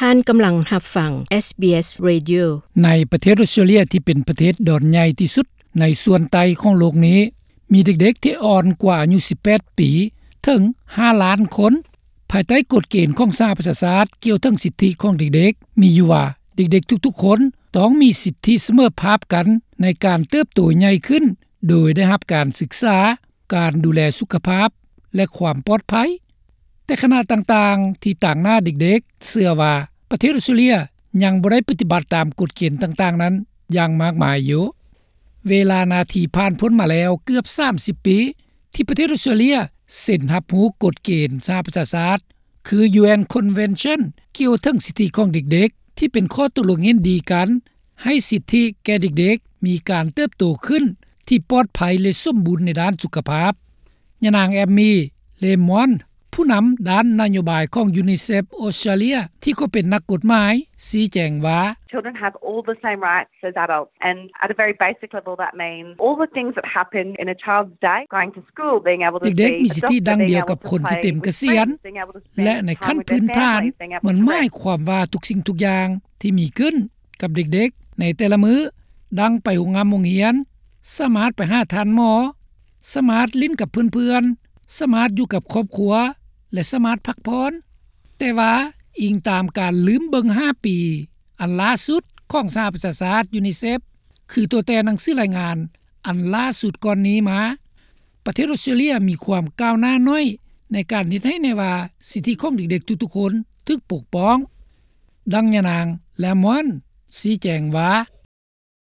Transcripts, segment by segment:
ທ່ານກຳລັງຮັບຟັງ SBS Radio. ໃນປະເທດອົດສະຕຣາເລຍ ທີ່ເປັນປະເທດດອນໃຫຍ່ທີ່ສຸດໃນສ່ວນໃຕ້ຂອງໂລກນີ້, ມີເດັກໆທີ່ອ່ອນກວ່າອາຍຸສິບແປດປີເຖິງຫ້າລ້ານຄົນ. ພາຍໃຕ້ກົດເກນຂອງສະຫະປະຊາຊາດກ່ຽວເຖິງສິດທິຂອງເດັກໆ ມີຢູ່ວ່າ ເດັກໆທຸກໆຄົນຕ້ອງມີສິດທິສະເໝີພາບກັນໃນການເຕີບໂຕໃຫຍ່ຂຶ້ນ ໂດຍໄດ້ຮັບການສຶກສາ, ການດູແລສຸຂະພາບ ແລະ ຄວາມປອດໄພ. ແຕ່ຄະນະຕ່າງໆທີ່ຕາງໜ້າເດັກໆ ເຊື່ອວ່າປະເທດອົດສະຕຣາເລຍຍັງບໍ່ໄດ້ປະຕິບັດຕາມກົດເກນຕ່າງໆນັ້ນຢ່າງມາກມາຍຢູ່. ເວລາໜ້າທີ່ຜ່ານພົ້ນມາແລ້ວເກືອບສາມສິບປີ ທີ່ປະເທດອົດສະຕຣາເລຍເຊັນຮັບຮູ້ກົດເກນສະຫະປະຊາຊາດ ຄື ຢູເອັນ Convention ກ່ຽວເຖິງສິດທິຂອງເດັກໆ ທີ່ເປັນຂໍ້ຕົກລົງເຫັນດີກັນ ໃຫ້ສິດທິແກ່ເດັກໆ ມີການເຕີບໂຕຂຶ້ນທີ່ປອດໄພ ແລະ ສົມບູນໃນດ້ານສຸຂະພາບ. ຍານາງ ແອມມີ ເລມອນ ຜູ້ນຳດ້ານນະໂຍບາຍຂອງ UNICEF Australia ທີ່ກໍເປັນນັກກົດໝາຍ ຊີ້ແຈງວ່າ Children have all the same rights as adults, and at a very basic level that means all the things that happen in a child's day, going to school, being able to see a doctor, being able to ເດັກໆມີສິດທິດັ່ງດຽວກັບຄົນທີ່ເຕັມກະສຽນ ແລະ ໃນຂັ້ນພື້ນຖານ ມັນໝາຍຄວາມວ່າທຸກສິ່ງທຸກຢ່າງທີ່ມີຂຶ້ນກັບເດັກໆໃນແຕ່ລະມື້, ດັ່ງໄປໂຮງງານໂຮງຮຽນ, ສາມາດໄປຫາທ່ານໝໍ, ສາມາດຫຼິ້ນກັບເພື່ອນໆ, ສາມາດຢູ່ກັບຄອບຄົວ ແລະ ສາມາດພັກຜ່ອນ. ແຕ່ວ່າອີງຕາມການລືມເບິ່ງຫ້າປີອັນລ່າສຸດຂອງສະຫະປະຊາຊາດ UNICEF ຄືຕົວແຕ່ໜັງສືລາຍງານອັນລ່າສຸດກ່ອນນີ້ມາ, ປະເທດອົດສະຕຣາເລຍມີຄວາມກ້າວໜ້າໜ້ອຍໃນການເຮັດໃຫ້ແນ່ວ່າສິດທິຂອງເດັກໆທຸກໆຄົນຖືກປົກປ້ອງ. ດັ່ງຍານາງ ເລມອນ ຊີ້ແຈງວ່າ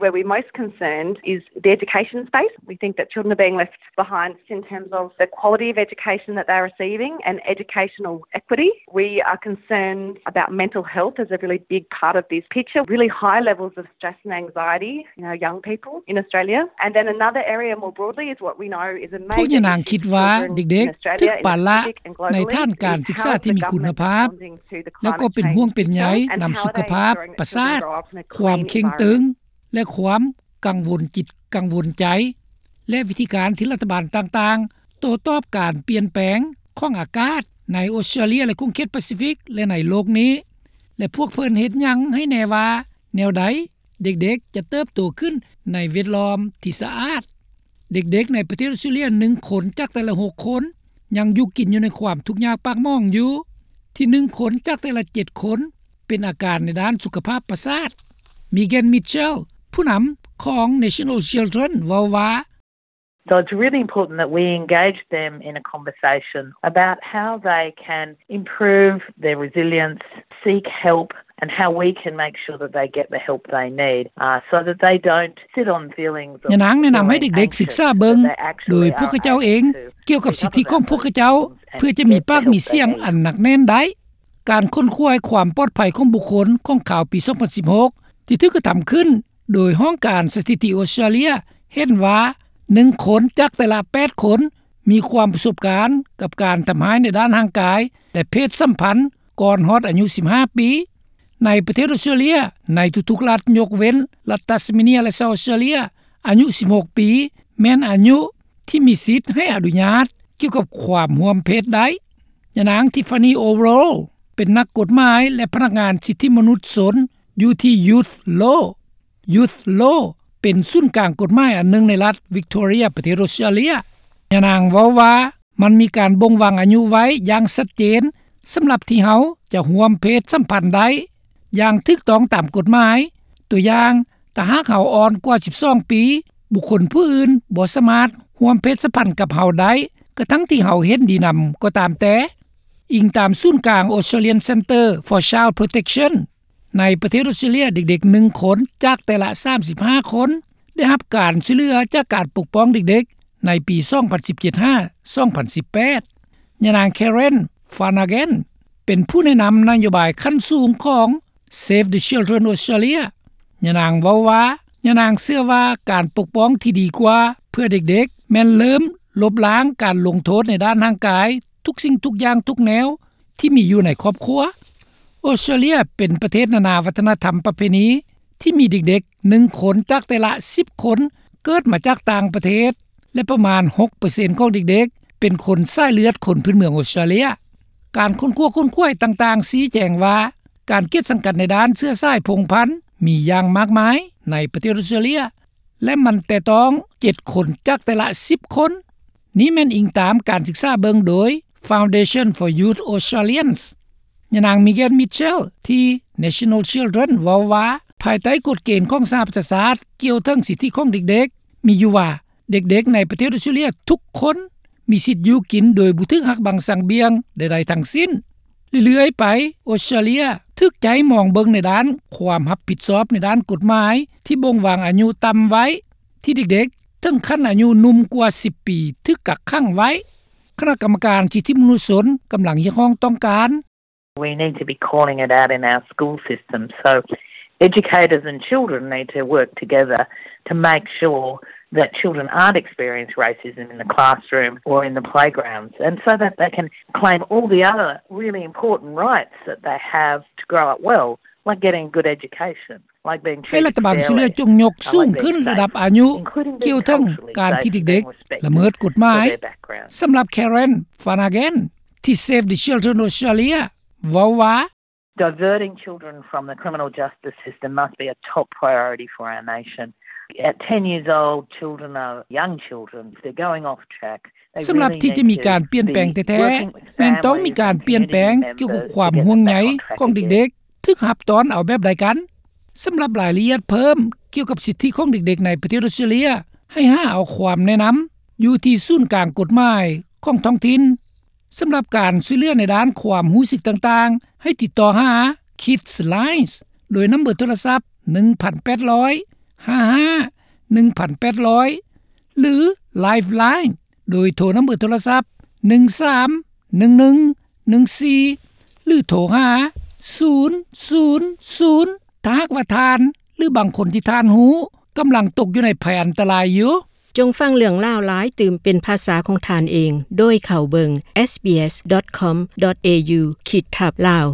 Where we're most concerned is the education space. We think that children are being left behind in terms of the quality of education that they're receiving and educational equity. We are concerned about mental health as a really big part of this picture, really high levels of stress and anxiety in our young people in Australia. And then another area more broadly is what we know is a major issue for children in Australia and specific and globally. ພວກຍານາງຄິດວ່າເດັກໆຖືກປະລະໃນຖານການສຶກສາທີ່ມີຄຸນນະພາບ ແລະ ກໍເປັນຫ່ວງເປັນໃຍນຳສຸຂະພາບປະສາດ, ຄວາມເຄັ່ງຕຶງ ແລະ ຄວາມກັງວົນຈິດກັງວົນໃຈ ແລະ ວິທີການທີ່ລັດຖະບານຕ່າງໆໂຕ້ຕອບການປ່ຽນແປງຂອງອາກາດໃນອົດສະຕຣາເລຍ ແລະ ຂົງເຂດປາຊີຟິກ ແລະ ໃນໂລກນີ້ ແລະ ພວກເພິ່ນເຮັດຫຍັງໃຫ້ແນ່ວ່າ ແນວໃດເດັກໆຈະເຕີບໂຕຂຶ້ນໃນແວດລ້ອມທີ່ສະອາດ. ເດັກໆໃນປະເທດອົດສະຕຣາເລຍ ໜຶ່ງຄົນຈາກແຕ່ລະຫົກຄົນ ຍັງຢູ່ກິນຢູ່ໃນຄວາມທຸກຍາກປາກໝອງຢູ່, ທີ່ໜຶ່ງຄົນຈາກແຕ່ລະເຈັດຄົນ ເປັນອາການໃນດ້ານສຸຂະພາບປະສາດ. ມີແກນ ມິດເຊລ ຜູ້ນຳຂອງ National Children ເວົ້າວ່າ So it's really important that we engage them in a conversation about how they can improve their resilience, seek help, and how we can make sure that they get the help they need, uh, so that they don't sit on feelings of feeling anxious, that they actually are able to ຍານາງແນະນຳໃຫ້ເດັກໆສຶກສາເບິ່ງໂດຍພວກເຂົາເຈົ້າເອງ ກ່ຽວກັບສິດທິຂອງພວກເຂົາເຈົ້າ ເພື່ອຈະມີປາກມີສຽງອັນໜັກແໜ້ນໄດ້. ການຄົ້ນຄວ້າຄວາມປອດໄພຂອງບຸກຄົນຂອງຂ່າວປີສອງພັນສິບຫົກ ທີ່ຖືກກະທຳຂຶ້ນໂດຍຫ້ອງການສະຖິຕິ ອອສເຕຣເລຍ ເຫັນວ່າ ໜຶ່ງຄົນຈາກແຕ່ລະແປດຄົນ ມີຄວາມປະສົບການກັບການທຳຮ້າຍໃນດ້ານຮ່າງກາຍ ແລະ ເພດສຳພັນ ກ່ອນຮອດອາຍຸສິບຫ້າປີ ໃນປະເທດອອສເຕຣເລຍ ໃນທຸກໆລັດ ຍົກເວັ້ນລັດ Tasmania ແລະ South Australia. ອາຍຸສິບຫົກປີ ແມ່ນອາຍຸທີ່ມີສິດໃຫ້ອະນຸຍາດກ່ຽວກັບຄວາມຮ່ວມເພດໄດ້. ຍານາງ Tiffany O'Rourke ເປັນນັກກົດໝາຍ ແລະ ພະນັກງານສິດທິມະນຸດຊົນຢູ່ທີ່ Youth Law. Youth Law ເປັນສູນກາງກົດໝາຍອັນໜຶ່ງໃນລັດ Victoria ປະເທດອອສເຕຣເລຍ. ຍານາງເວົ້າວ່າ ມັນມີການບົ່ງວາງອາຍຸໄວ້ຢ່າງຊັດເຈນ ສຳລັບທີ່ເຮົາຈະຮ່ວມເພດສຳພັນໄດ້ຢ່າງຖືກຕ້ອງຕາມກົດໝາຍ. ຕົວຢ່າງ, ຖ້າຫາກເຮົາອ່ອນກວ່າສິບສອງປີ, ບຸກຄົນຜູ້ອື່ນບໍ່ສາມາດຮ່ວມເພດສຳພັນກັບເຮົາໄດ້ ກະທັ່ງທີ່ເຮົາເຫັນດີນຳກໍຕາມແຕ່. ອີງຕາມສູນກາງ Australian Centre for Child Protection, ໃນປະເທດອອສເຕຣເລຍ ເດັກໆໜຶ່ງຄົນຈາກແຕ່ລະສາມສິບຫ້າຄົນ ໄດ້ຮັບການຊ່ວຍເຫຼືອຈາກການປົກປ້ອງເດັກໆໃນປີສອງພັນສິບເຈັດຫາສອງພັນສິບແປດ. ຍານາງ Karen Flanagan ເປັນຜູ້ແນະນຳນະໂຍບາຍຂັ້ນສູງຂອງ Save the Children Australia. ຍານາງເວົ້າວ່າ ຍານາງເຊື່ອວ່າການປົກປ້ອງທີ່ດີກວ່າເພື່ອເດັກໆ ແມ່ນເລີ່ມລົບລ້າງການລົງໂທດໃນດ້ານຮ່າງກາຍທຸກສິ່ງທຸກຢ່າງທຸກແນວ ທີ່ມີຢູ່ໃນຄອບຄົວ. ອອສເຕຣເລຍເປັນປະເທດນານາວັດທະນະທຳປະເພນີ ທີ່ມີເດັກໆໜຶ່ງຄົນຈາກແຕ່ລະສິບຄົນເກີດມາຈາກຕ່າງປະເທດ ແລະ ປະມານຫົກເປີເຊັນຂອງເດັກໆເປັນຄົນສາຍເລືອດຄົນພື້ນເມືອງອອສເຕຣເລຍ. ການຄົ້ນຄວ້າຄົ້ນຄວາຍຕ່າງໆຊີ້ແຈງວ່າ ການກຽດສັງກັດໃນດ້ານເຊື້ອສາຍພົງພັນມີຢ່າງມາກມາຍໃນປະເທດອອສເຕຣເລັຍ ແລະ ມັນແຕະຕ້ອງເຈັດຄົນຈາກແຕ່ລະສິບຄົນ. ນີ້ແມ່ນອີງຕາມການສຶກສາເບິ່ງໂດຍ Foundation for Youth Australians. ຍານາງ Megan Mitchell ທີ່ National Children ເວົ້າວ່າ ພາຍໃຕ້ກົດເກນຂອງສະຫະປະຊາຊາດກ່ຽວເຖິງສິດທິຂອງເດັກໆ ມີຢູ່ວ່າ ເດັກໆໃນປະເທດອອສເຕຣເລັຍທຸກຄົນມີສິດຢູ່ກິນໂດຍບໍ່ຖືກຫັກບັງສັງບຽງໃດໆທັງສິ້ນ. ເລື້ອຍໆໄປ ອອສເຕຣເລັຍຖືກໃຈມອງເບິ່ງໃນດ້ານຄວາມຮັບຜິດຊອບໃນດ້ານກົດໝາຍທີ່ບົ່ງວາງອາຍຸຕ່ຳໄວ້ ທີ່ເດັກໆເຖິງຂັ້ນອາຍຸໜຸ່ມກວ່າສິບປີຖືກກັກຂັງໄວ້. ຄະນະກຳມະການສິດທິມະນຸດຊົນກຳລັງຮຽກຮ້ອງຕ້ອງການ We need to be calling it out in our school system. So educators and children need to work together to make sure that children aren't experience racism in the classroom or in the playgrounds, and so that they can claim all the other really important rights that they have to grow up well, like getting a good education, like being treated fairly, ໃຫ້ລັດຖະບານອອສເຕຣເລັຍຈົ່ງຍົກສູງຂຶ້ນລະດັບອາຍຸກ່ຽວເຖິງການທີ່ເດັກໆລະເມີດກົດໝາຍ. ສຳລັບ Karen Flanagan ທີ່ Save the Children Australia ເວົ້າວ່າ Diverting children from the criminal justice system must be a top priority for our nation. At ten years old, children are young children. If they're going off track, ສຳລັບທີ່ຈະມີການປ່ຽນແປງແທ້ໆ ແມ່ນຕ້ອງມີການປ່ຽນແປງກ່ຽວກັບຄວາມຫ່ວງໃຍຂອງເດັກໆ ຖືກຮັບຕ້ອນເອົາແບບໃດກັນ. ສຳລັບລາຍລະອຽດເພີ່ມກ່ຽວກັບສິດທິຂອງເດັກໆໃນປະເທດອອສເຕຣເລັຍ ໃຫ້ຫາເອົາຄຳແນະນຳຢູ່ທີ່ສູນກາງກົດໝາຍຂອງທ້ອງຖິ່ນ. ສຳລັບການຊ່ວຍເຫຼືອໃນດ້ານຄວາມຮູ້ສຶກຕ່າງໆ ໃຫ້ຕິດຕໍ່ຫາ Kids Lines ໂດຍນຳເບີໂທລະສັບ ໜຶ່ງພັນແປດຮ້ອຍ ຫ້າຫ້າ ໜຶ່ງພັນແປດຮ້ອຍ ຫຼື Lifeline ໂດຍໂທນຳເບີໂທລະສັບ ໜຶ່ງສາມໜຶ່ງໜຶ່ງໜຶ່ງສີ່ ຫຼື ໂທຫາ ສູນສູນສູນ ຖ້າຫາກວ່າທ່ານ ຫຼື ບາງຄົນທີ່ທ່ານຮູ້ ກຳລັງຕົກຢູ່ໃນໄພອັນຕະລາຍຢູ່. ຈົ່ງຟັງເລື່ອງລາວຫຼາຍຕື່ມເປັນພາສາຂອງທ່ານເອງ ໂດຍເຂົ້າເບິ່ງ sbs.com.au ຂີດທັບ Lao.